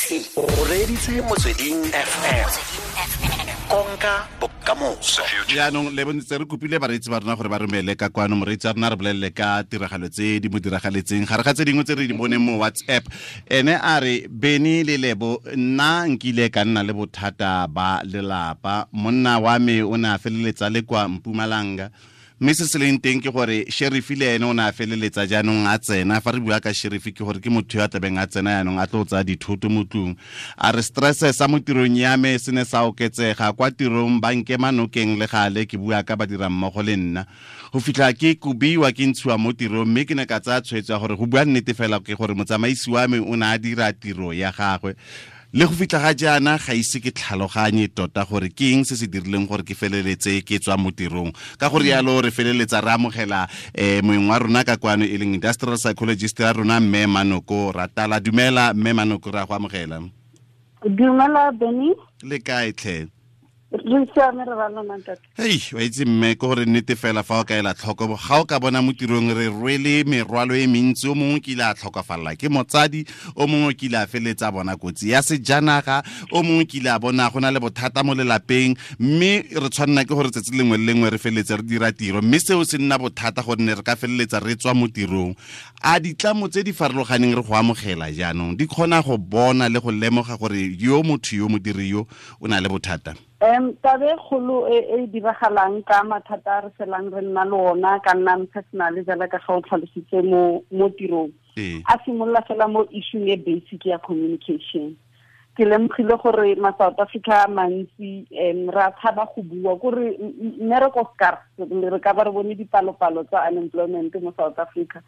O reditse Motsweding FM. Konka bokamoso. Jaanong le bontse re kopile bareetsi ba rona gore ba romele ka kwano. Moreetsi wa rona re bolelele ka tiragalo tse di mo diragaletseng gare ga tse dingwe tse re di boneng mo WhatsApp. Ene a re, Beny le Lebo, nna nkile ka nna le bothata ba lelapa. Monna wa me o ne a feleletsa le kwa Mpumalanga, mme se se leng teng ke gore sheriff le ene o ne a feleletsa jaanong a tsena. Fa re bua ka sheriff ke gore ke motho yo a tlabeng a tsena jaanong a tlo tsaya dithoto mo tlung. A re stress sa mo tirong ya me se ne sa oketsega kwa tirong, ba nkema nokeng le gale, ke bua ka badirammogo le nna, go fitlha ke kobiwa, ke ntshiwa mo tirong. Mme ke ne ka tsaya tshwetso ya gore go bua nnete fela ke gore motsamaisi wa me o ne a dira tiro ya gagwe. Le go fitlha ga jaana ga ise ke tlhaloganye tota gore ke eng se se dirileng gore ke feleletse ke tswa mo tirong. Ka gore yalo re feleletsa re amogela moeng wa rona ka kwano, e leng industrial psychologist ya rona, mme Manoko Ratala. Dumela mme Manoko, re a go amogela. Dumela Benny. Le kae tlhe? Re siame, re ba lona ntate. Hei, wa itse mme, ke gore nnete fela fa o ka ela tlhoko, ga o ka bona mo tirong re rwele merwalo e mentsi. O mongwe kile a tlhokafalela ke motsadi, o mongwe kile a feletsa bona kotsi ya sejanaga, o mongwe kile a bona go na le bothata mo lelapeng, mme re tshwanela ke gore tsatsi lengwe le lengwe re feleletse re dira tiro, mme seo se nna bothata gonne re ka feleletsa re tswa mo tirong. A ditlamo tse di farologaneng re go amogela jaanong di kgona go bona le go lemoga gore yo motho yo modiri yo o na le bothata? Tabe kgolo e diragalang ka mathata a re felang re nna le ona, ka nna personal jala ka ga o tlhalositse mo tirong, a simolola fela mo issue e basic ya communication. Ke lemogile gore ma South Africa a mantsi re a tshaba go bua, kore mmereko scarce, re ka ba re bone dipalopalo tsa unemployment mo South Africa.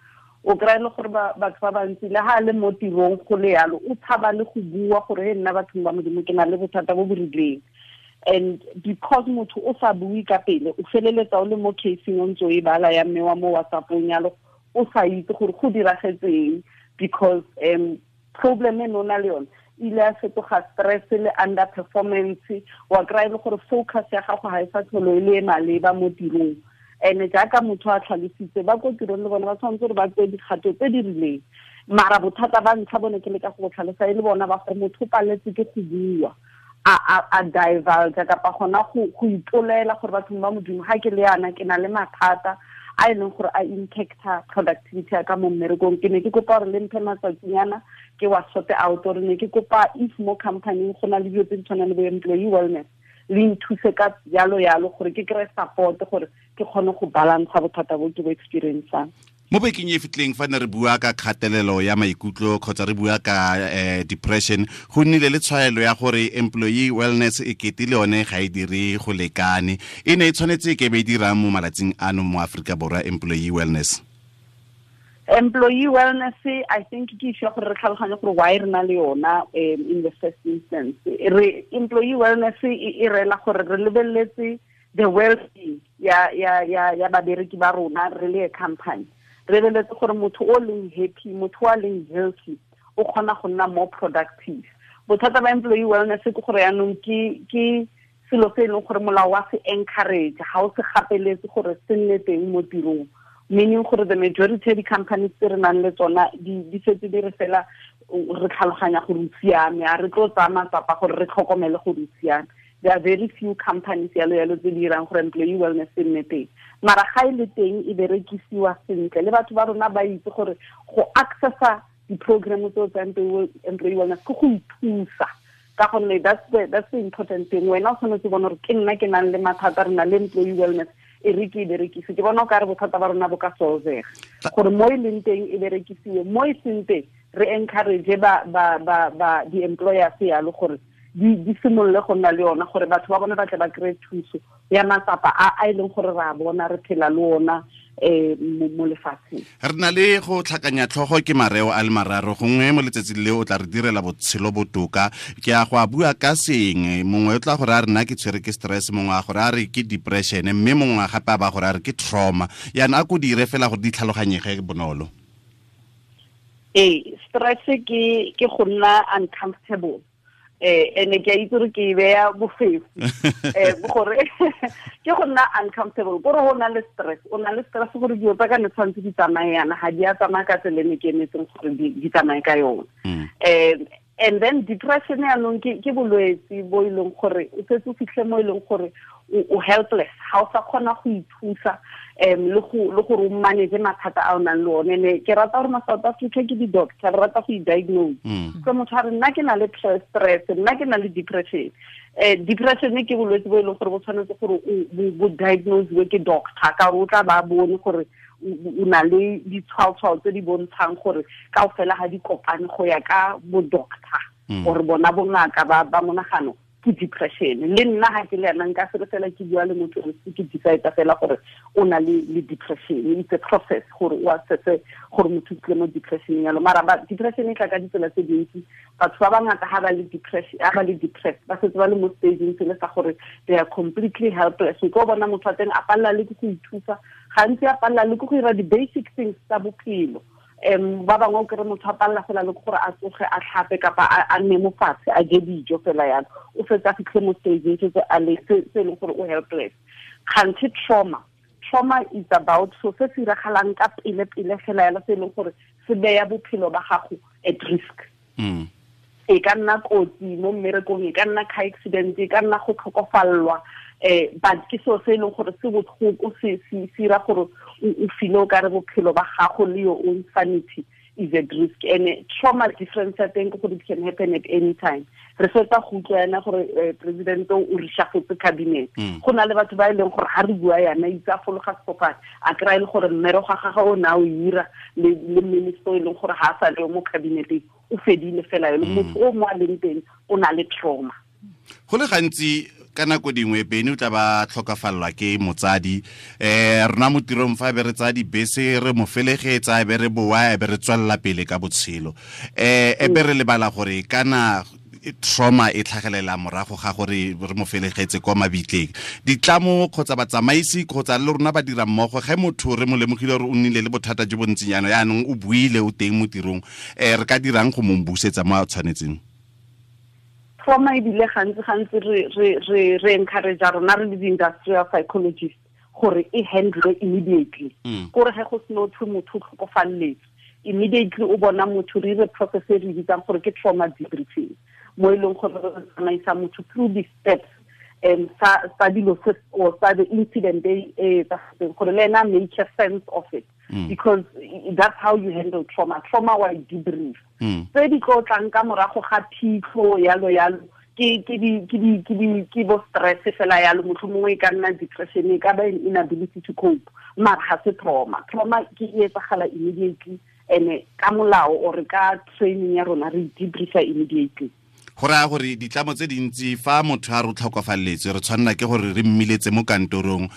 O kry-e le gore batho ba bantsi le ha le mo tirong go le yalo, o tshaba le go bua gore he nna bathong ba Modimo ke na le bothata bo bo rileng. And because motho o sa bue ka pele, o feleletsa o le mo caseng o ntse o e bala ya mme wa mo WhatsApp-ong yalo, o sa itse gore go diragetseng, because problem e ne o na le yone ile ya fetoga stress le underperformance. Wa kry-e le gore focus ya gago ga e sa tlholo e le e maleba mo tirong. And jaaka motho a tlhalositse, ba ko tirong le bone ba tshwanetse gore ba tseye dikgato tse di rileng. Mara bothata ba ntlha bone ke leka go tlhalosa e le bona ba gore motho o paletse ke go bua, a divulge kapa gona go ipolela gore bathong ba Modimo ga ke le yana ke na le mathata a e leng gore a impacta productivity ya ka mo mmerekong. Ke ne ke kopa gore le mphe matsatsinyana ke wa sort out, gore ne ke kopa if mo company go na le dilo tse di tshwanang le bo employee wellness, le nthuse ka jalo yalo gore ke kry-e support gore ke kgone go balantsha bothata bo ke bo experiencang. Mo bekeng e fitleng fa ne re bua ka kgatelelo ya maikutlo kgotsa re bua ka depression, go nnile le tshwaelo ya gore employee wellness e kete le yone ga e dire go lekane. E ne e tshwanetse e ke be e dirang mo malatsing ano mo Aforika Borwa employee wellness? Employee wellness, I think ke issue ya gore re tlhaloganye gore why re na le yona in the first instance. Re employee wellness e reela gore re lebeletse the well-being ya babereki ba rona re le a company. Re lebeletse gore motho o leng happy, motho o leng healthy, o kgona go nna more productive. Bothata ba employee wellness ke gore yaanong ke selo se e leng gore molao wa se encourage, ga o se gapeletse gore se nne teng mo tirong. Meaning gore the majority of di-companies tse re nang le tsona di setse di re fela re tlhaloganya gore o siame, a re tlo tsaya matsapa gore re tlhokomele gore o siame. There are very few companies yalo yalo tse di dirang gore employee wellness e nne teng. Mara ga e le teng e berekisiwa sentle, le batho ba rona ba itse gore go accessa di-program tseo tsa employee wellness ke go ithusa, ka gonne that's the important thing. Wena o tshwanetse bona gore ke nna ke nang le mathata, re na le employee wellness, e re ke e berekise. Ke bona o ka re bothata ba rona bo ka solvega gore mo e leng teng e berekisiwe, mo e seng teng re encourage ba di-employers yalo gore di simolole go nna le yona, gore batho ba bone ba tle ba kry-e thuso ya matsapa a e leng gore re a bona re phela le ona mo lefatsheng. Re na le go tlhakanya tlhogo ke mareo a le mararo, gongwe mo letsatsing le o tla re direla botshelo botoka. Ke a go a bua ka sengwe, mongwe o tla gore a re nna ke tshwere ke stress, mongwe a gore a re ke depression, mme mongwe gape a ba gore a re ke trauma. Yaanong a ko dire fela gore di tlhaloganyege bonolo. Ee, stress ke go nna uncomfortable. Ene ke a itse gore ke e beya bofefo. Gore ke go nna uncomfortable, kore o na le stress, o na le stress gore dilo tsa ka ne tshwanetse di tsamaye yana, ga di a tsamaya ka tsela e ne ke emetseng gore di tsamaye ka yona. And then depression yaanong ke bolwetse bo e leng gore o setse o fitlhe mo e leng gore o helpless, ga o sa kgona go ithusa le gore o manage mathata a o nang le one. Ne ke rata gore ma South Africa ke di-doctor, re rata go i-diagnose. So motho a re nna ke na le stress, nna ke na le depression. Depression ke bolwetse bo e leng gore bo tshwanetse gore bo diagnosiwe ke doctor, ka gore o tla ba bone gore o na le ditshwaotshwao tse di bontshang gore kaofela ga di kopane go ya ka bo doctor or bona bongaka ba monagano ke depression. Le nna ga ke le yana nka se fela ke bua le motho o ke decide fela gore o na le depression. It's a process gore o assesse gore motho o tlile mo depression yalo. Mara ba depression e tla ka ditsela tse dintsi. Batho ba bangata ha ba le depression, ha ba le depressed, ba setse ba le mo stageng se le sa gore they are completely helpless. O ka bona motho wa teng a palela le ke go ithusa, gantsi a palela le ke go dira di-basic things tsa bophelo. Ba bangwe o kry motho a palela fela le gore a tsoge a tlhape kapa a nne mo fatshe a je dijo fela yalo, o fetse a fitlhe mo stageng se se leng gore o helpless. Kganthe trauma is about so se se iragalang ka pele pele fela yalo, se e leng gore se beya bophelo ba gago at risk. E ka nna kotsi mo mmerekong, e ka nna car accident, e ka nna go tlhokofallwa, but ke seo se e leng gore se botlhoko, se ira gore o feel o kare bophelo ba gago le your own sanity is at risk. And trauma difference ya teng ke gore it can happen at any time. Re fetsa go utlwa yana gore president o reshuffletse cabinet. Go na le batho ba e leng gore ha re bua yana itse a fologa sefofane, a kry-a e le gore mmereko ga gagwe o ne a o ira le minister e leng gore ha a sa le mo cabineteng, o fedile fela yalo. Motho o mo a leng teng o na le trauma. Go le gantsi ka nako dingwe Bene o tla ba tlhokafallwa ke motsadi, rona mo tirong fa be re tsaya dibese re mo felegetsa, e be re boa, e be re tswelela pele ka botshelo, e be re lebala gore kana trauma e tlhagelela morago ga gore re mo felegetse kwa mabitleng. Ditlamo kgotsa batsamaisi kgotsa le rona ba dira mmogo, ge motho re mo lemogile gore o nnile le bothata jo bo ntseng jaana, yaanong o buile o teng mo tirong, re ka dirang go mo busetsa mo a tshwanetseng? Trauma ebile gantsi re encourage rona re le di-industrial psychologist gore e handle immediately. Kore ge go seno thwe motho o tlhokofalletswe, immediately o bona motho re dire process e re bitsang gore ke trauma debriefing, mo e leng gore re tsamaisa motho through the steps sa dilo se or sa the incident e etsagetseng, gore le ena make a sense of it. Because that's how you handle trauma. Trauma wa debrief. Tse di tlo tlang ka morago ga phitlho yalo yalo, ke bo stress fela yalo, mohlomongwe e ka nna depression, e ka ba inability to cope, mara ga se trauma. Trauma ke e etsagala immediately, and ka molao or ka training ya rona re debriefa immediately. Go raya gore ditlamo tse dintsi fa motho a re tlhokofalletswe re tshwanela ke gore re mmiletse mo kantorong,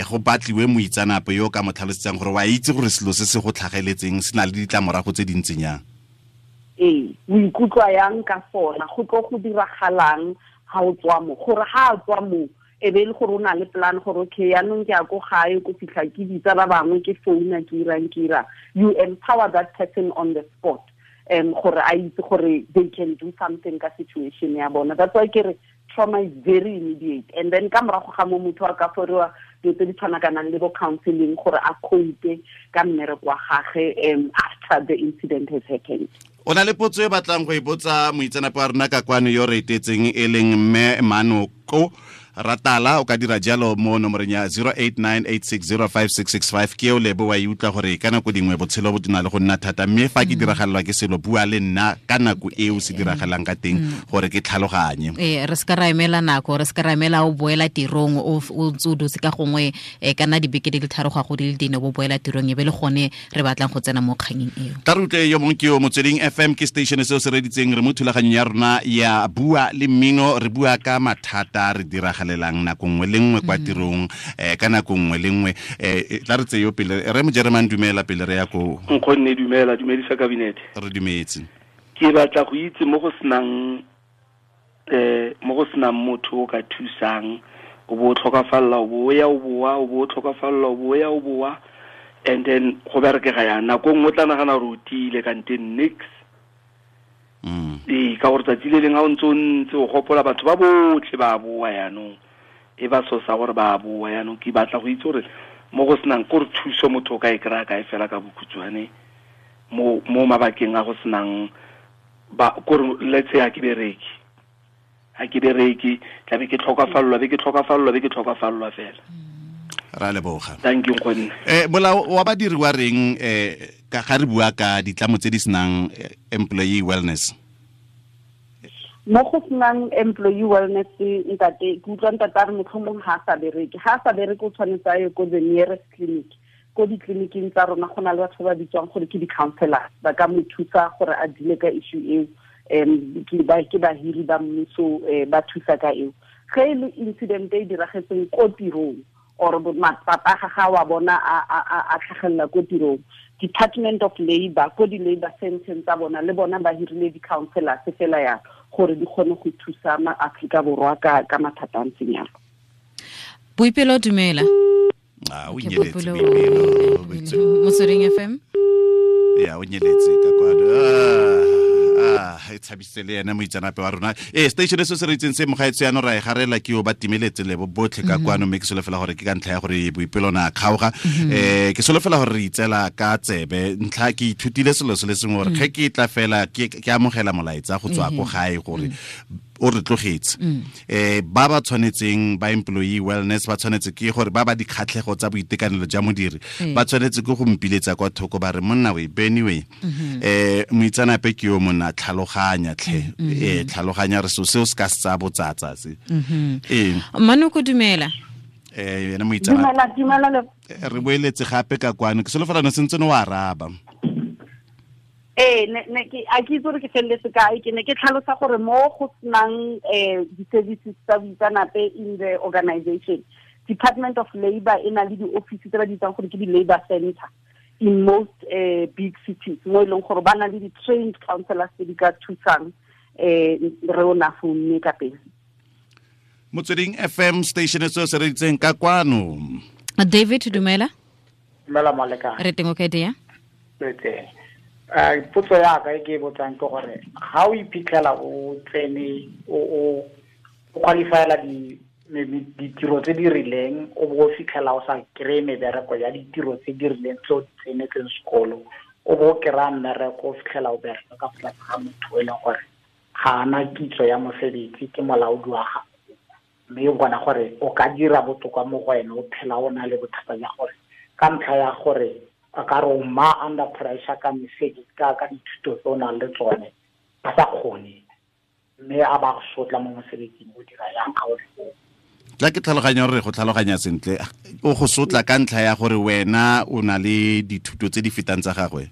go batliwe moitseanape yo ka mo tlhalosetsang gore wa itse gore selo se se go tlhageletseng se na le ditlamorago tse dintseng yang. Ee, o ikutlwa yang ka sona, go tlo go diragalang ha o tswa mo, gore ha a tswa mo e be e le gore o na le plan gore okay yaanong ke ya ko gae, ko fitlha ke bitsa ba bangwe, ke founa, ke irang, ke irang. You empower that person on the spot, gore a itse gore they can do something ka situation ya bona. That's why ke re trauma is very immediate. And then ka morago ga mo motho a ka foriwa dilo tse di tshwanakanang le bo counseling gore a cope ka mmereko wa gagwe after the incident has happened. O na le potso e batlang go e botsa moitseanape wa rona ka kwano yo re etetseng e leng mme Manoko Ratala, o ka dira jalo mo nomoreng ya 0898605665. Ke eo Lebo wa e utlwa gore ka nako dingwe botshelo bo na le go nna thata, mme fa ke diragalelwa ke selo, bua le nna ka nako eo se diragalang ka teng gore ke tlhaloganye. Re se ka ra emela nako, re se ka ra emela o boela tirong o ntse o dutse ka gongwe, ka nna dibeke di le tharo go ya go di le dine o boela tirong, e be le gone re batlang go tsena mo kganyeng eo. Tla re utlwe yo mongwe ke yo Motsweding FM, ke station seo se reditseng, re mo thulaganyong ya rona ya Bua le Mmino, re bua ka mathata re diragalelang nako nngwe le nngwe kwa tirong, ka nako nngwe le nngwe. Tla re tseye yo pele, re mo Jeremane, dumela pele re ya ko. Nkgonne, dumela, dumedisa kabinete. Re dumetse. Ke batla go itse mo go senang motho o ka thusang, o bo tlhokafalla, o bo ya o boa, o bo tlhokafalla, o bo ya o boa, and then go berekega yang nako nngwe o tla nagana gore o tiile kante nix. Ee, ka gore tsatsi le leng ha o ntse o ntse o gopola batho ba botlhe ba boa yaanong, e ba sosa gore ba boa yaanong. Ke batla go itse gore mo go senang kore thuso motho o ka e kry-a kae fela ka bokhutshwane mo mabakeng a go senang Ba kore let's say ha ke bereke tla be ke tlhokafallwa fela. Ra leboga. Thank you nkgonne. Molao wa badiri wa reng ka ga re bua ka ditlamo tse di senang employee wellness? Mo go senang employee wellness ntate, ke utlwa ntate a re motlhomong ga a sa bereke, o tshwanetse a ye ko the nearest clinic. Ko ditleliniking tsa rona go na le batho ba bitswang gore ke di-counselors, ba ka mo thusa gore a dile ka issue eo. Ke bahiri ba mmuso ba thusa ka eo. Ge e le incident e diragetseng ko tirong or matsapa ga ga wa bona a tlhagelela ko tirong, Department of Labor ko di-labor centers tsa bona le bona ba hirile di-counselors fela ya gore di kgone go thusa ma-Afrika Borwa ka mathata a ntseng yalo. Boipelo, dumela. O nyeletse Boipelo. Motsweding FM. Ya, o nyeletse ka kwano. E tshabisitse le ene moitseanape wa rona. Station se se re itseng se mogaetso yaanong ra e garela ke o ba timeletse lebo botlhe ka kwano, mme ke solofela gore ke ka ntlha ya gore Boipelo na kgaoga. Ke solofela gore re itsela ka tsebe ntlha. Ke ithutile selo se le sengwe gore ge ke tla fela ke amogela molaetsa go tswa ko gae gore o re tlogetse. Ba ba tshwanetseng ba employee wellness ba tshwanetse ke gore ba ba dikgatlhego tsa boitekanelo jwa modiri ba tshwanetse ke go mpiletsa kwa thoko ba re monna we Benny we moitseanape ke yo monna, tlhaloganya tlhe, tlhaloganya re so seo se ka se tsaya botsatsa se. Manoko, dumela. Ene moitseanape. Dumela. Re boeletse gape ka kwano, ke solofela no sentse no araba. Ne ke a ke itse gore ke feleletse kae. Ke ne ke tlhalosa gore mo go senang di-services tsa boitseanape in the organization, Department of Labor e na le di-office tse ba di bitsang gore ke di-labor center in most big cities, mo e leng gore ba na le di-trained counselors tse di ka thusang re o na founne ka pele. Motsweding FM station se se re itseng ka kwano. David, dumela. Dumela molekane. Re teng o kae dia? Re teng. Potso ya ka e ke botsang ke gore ga o iphitlhela o tsene o qualifyela ditiro tse di rileng, o bo o fitlhela o sa kry-e mebereko ya ditiro tse di rileng tse o di tsenetseng sekolo, o bo o kry-a mmereko o fitlhela o bereka ka fa tlase ga motho e leng gore ga ana kitso ya mosebetsi, ke molaodi wa gago, mme o bona gore o ka dira botoka mo go ene, o phela o na le bothata ja gore ka ntlha ya gore a ka re o ma under pressure ka mesebetsi ka dithuto tse o nang le tsone a sa kgone, mme a ba go sotla mo mosebetsing, o dira yang ga o le foo? Tla ke tlhaloganya gore go tlhaloganya sentle, o go sotla ka ntlha ya gore wena o na le dithuto tse di fetang tsa gagwe?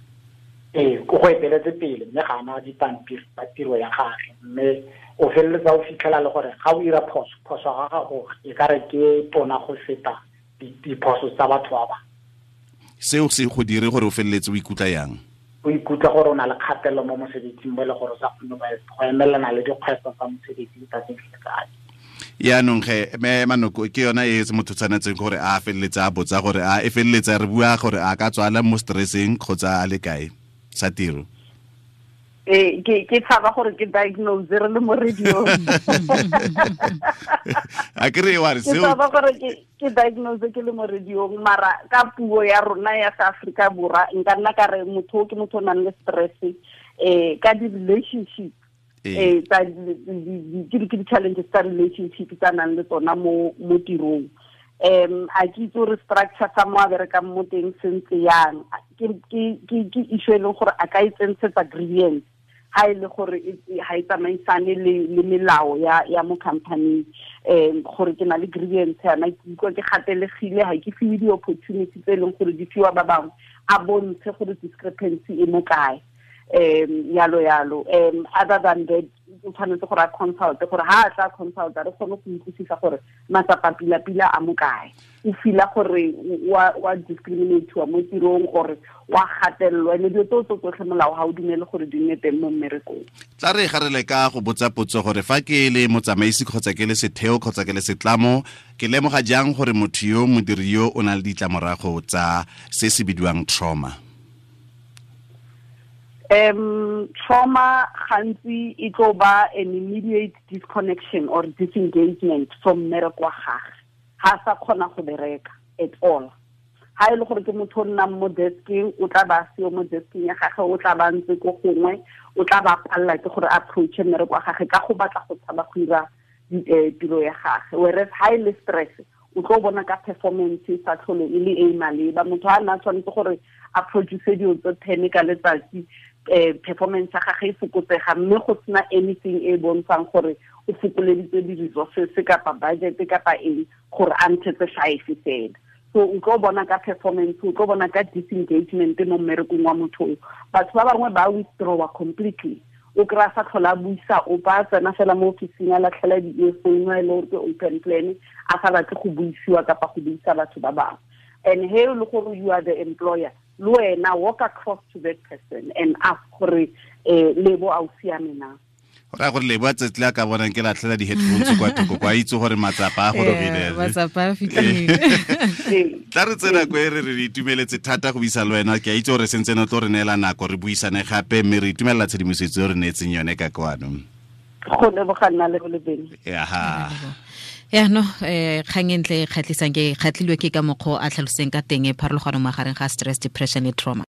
Ee, ko go eteletse pele, mme ga ana dipampiri tsa tiro ya gagwe, mme o feleletsa o fitlhela le gore ga o ira phoso ga gago e ka re ke tona go feta diphoso tsa batho ba bangwe. Seo se go dire gore o feleletse o ikutlwa yang? O ikutlwa gore o na le kgatelelo mo mosebetsing mo e le gore o sa kgone go emelana le dikgwetlho tsa mosebetsi letsatsi le letsatsi. Yaanong ge me Manoko ke yona e se motho tshwanetseng gore a feleletse a botsa gore a e feleletse re bua gore a ka tswala mo stresseng kgotsa a le kae sa tiro. Ke tshaba gore ke diagnose re le mo radio. A ke re wa re seo. Ke tshaba gore ke diagnose ke le mo radio, mara ka puo ya rona ya South Africa Borwa nka nna ka re motho ke motho o nang le stress ka di-relationship tsa ke di-challenges tsa relationship tsa nang le tsona mo tirong. A ke itse gore structure sa mo a berekang mo teng se ntse yang, ke issue e leng gore a ka e tsentshetsa grievance ha e le gore ha e tsamaisane le melao ya mo company, gore ke na le grievance yana, ke utlwa ke gatelegile, ha ke fiwe di-opportunity tse e leng gore di fiwa ba bangwe, a bontshe gore discrepancy e mo kae, yalo yalo. Other than that, o tshwanetse gore a consult, gore ha a tla consult re kgone go utlwisisa gore matsapa pila-pila a mo kae, o fila gore wa discriminate-wa mo tirong gore wa gatelelwa, ene dilo tseo tse tsotlhe molao ga o dumele gore di nne teng mo mmerekong. Tla re ga re le ka go botsa potso gore fa ke le motsamaisi kgotsa ke le setheo kgotsa ke le setlamo, ke lemoga jang gore motho yo modiri yo o na le ditlamorago tsa se se bidiwang trauma? Trauma gantsi e tlo ba an immediate disconnection or disengagement from mmereko wa gagwe, ha sa kgona go bereka at all, Ha e le gore ke motho o nnang mo deskeng, o tla ba seo mo deskeng ya gagwe, o tla ba ntse ko gongwe, o tla ba palela ke gore approach mmereko wa gagwe ka go batla go tshaba go dira tiro ya gagwe. Whereas ha e le stress, o tlo bona ka performance e sa tlhole e le e maleba. Motho a nna tshwanetse gore a produce dilo tse 10 ka letsatsi, performance ya gagwe e fokotsega, mme go sena anything e bontshang gore o fokoleditse di-resources kapa budget kapa eng gore a ntshetse 5 fela. So o tlo bona ka performance, o tlo bona ka disengagement mo mmerekong wa motho. Batho ba bangwe ba withdrawa completely, o kry-a sa tlhola a buisa, o ba tsena fela mo ofising a latlhela di-earphone a e le gore ke open plan, a sa batle go buisiwa kapa go buisa batho ba bangwe. And he le gore you are the employer, le wena walk across to that person and ask gore Lebo a o siame na. Go raya gore Lebo a tsatsi le a ka bonang ke latlhela di-headphones kwa thoko, kwa itse gore matsapa a gorogile. Matsapa a fitlhile. Tla re tsena ko e re re itumeletse thata go buisa le wena. Ke a itse gore sentse ne tlo re neela nako re buisane gape, mme re itumelela tshedimosetso e re neetseng yone ka kwano. Go leboga nna le Lebeng. Aha. Ya no, kgang e ntle e kgatlhisang, ke kgatlhilwe ke ka mokgwa o a tlhaloseng ka teng e pharologano magareng ga stress, depression le trauma.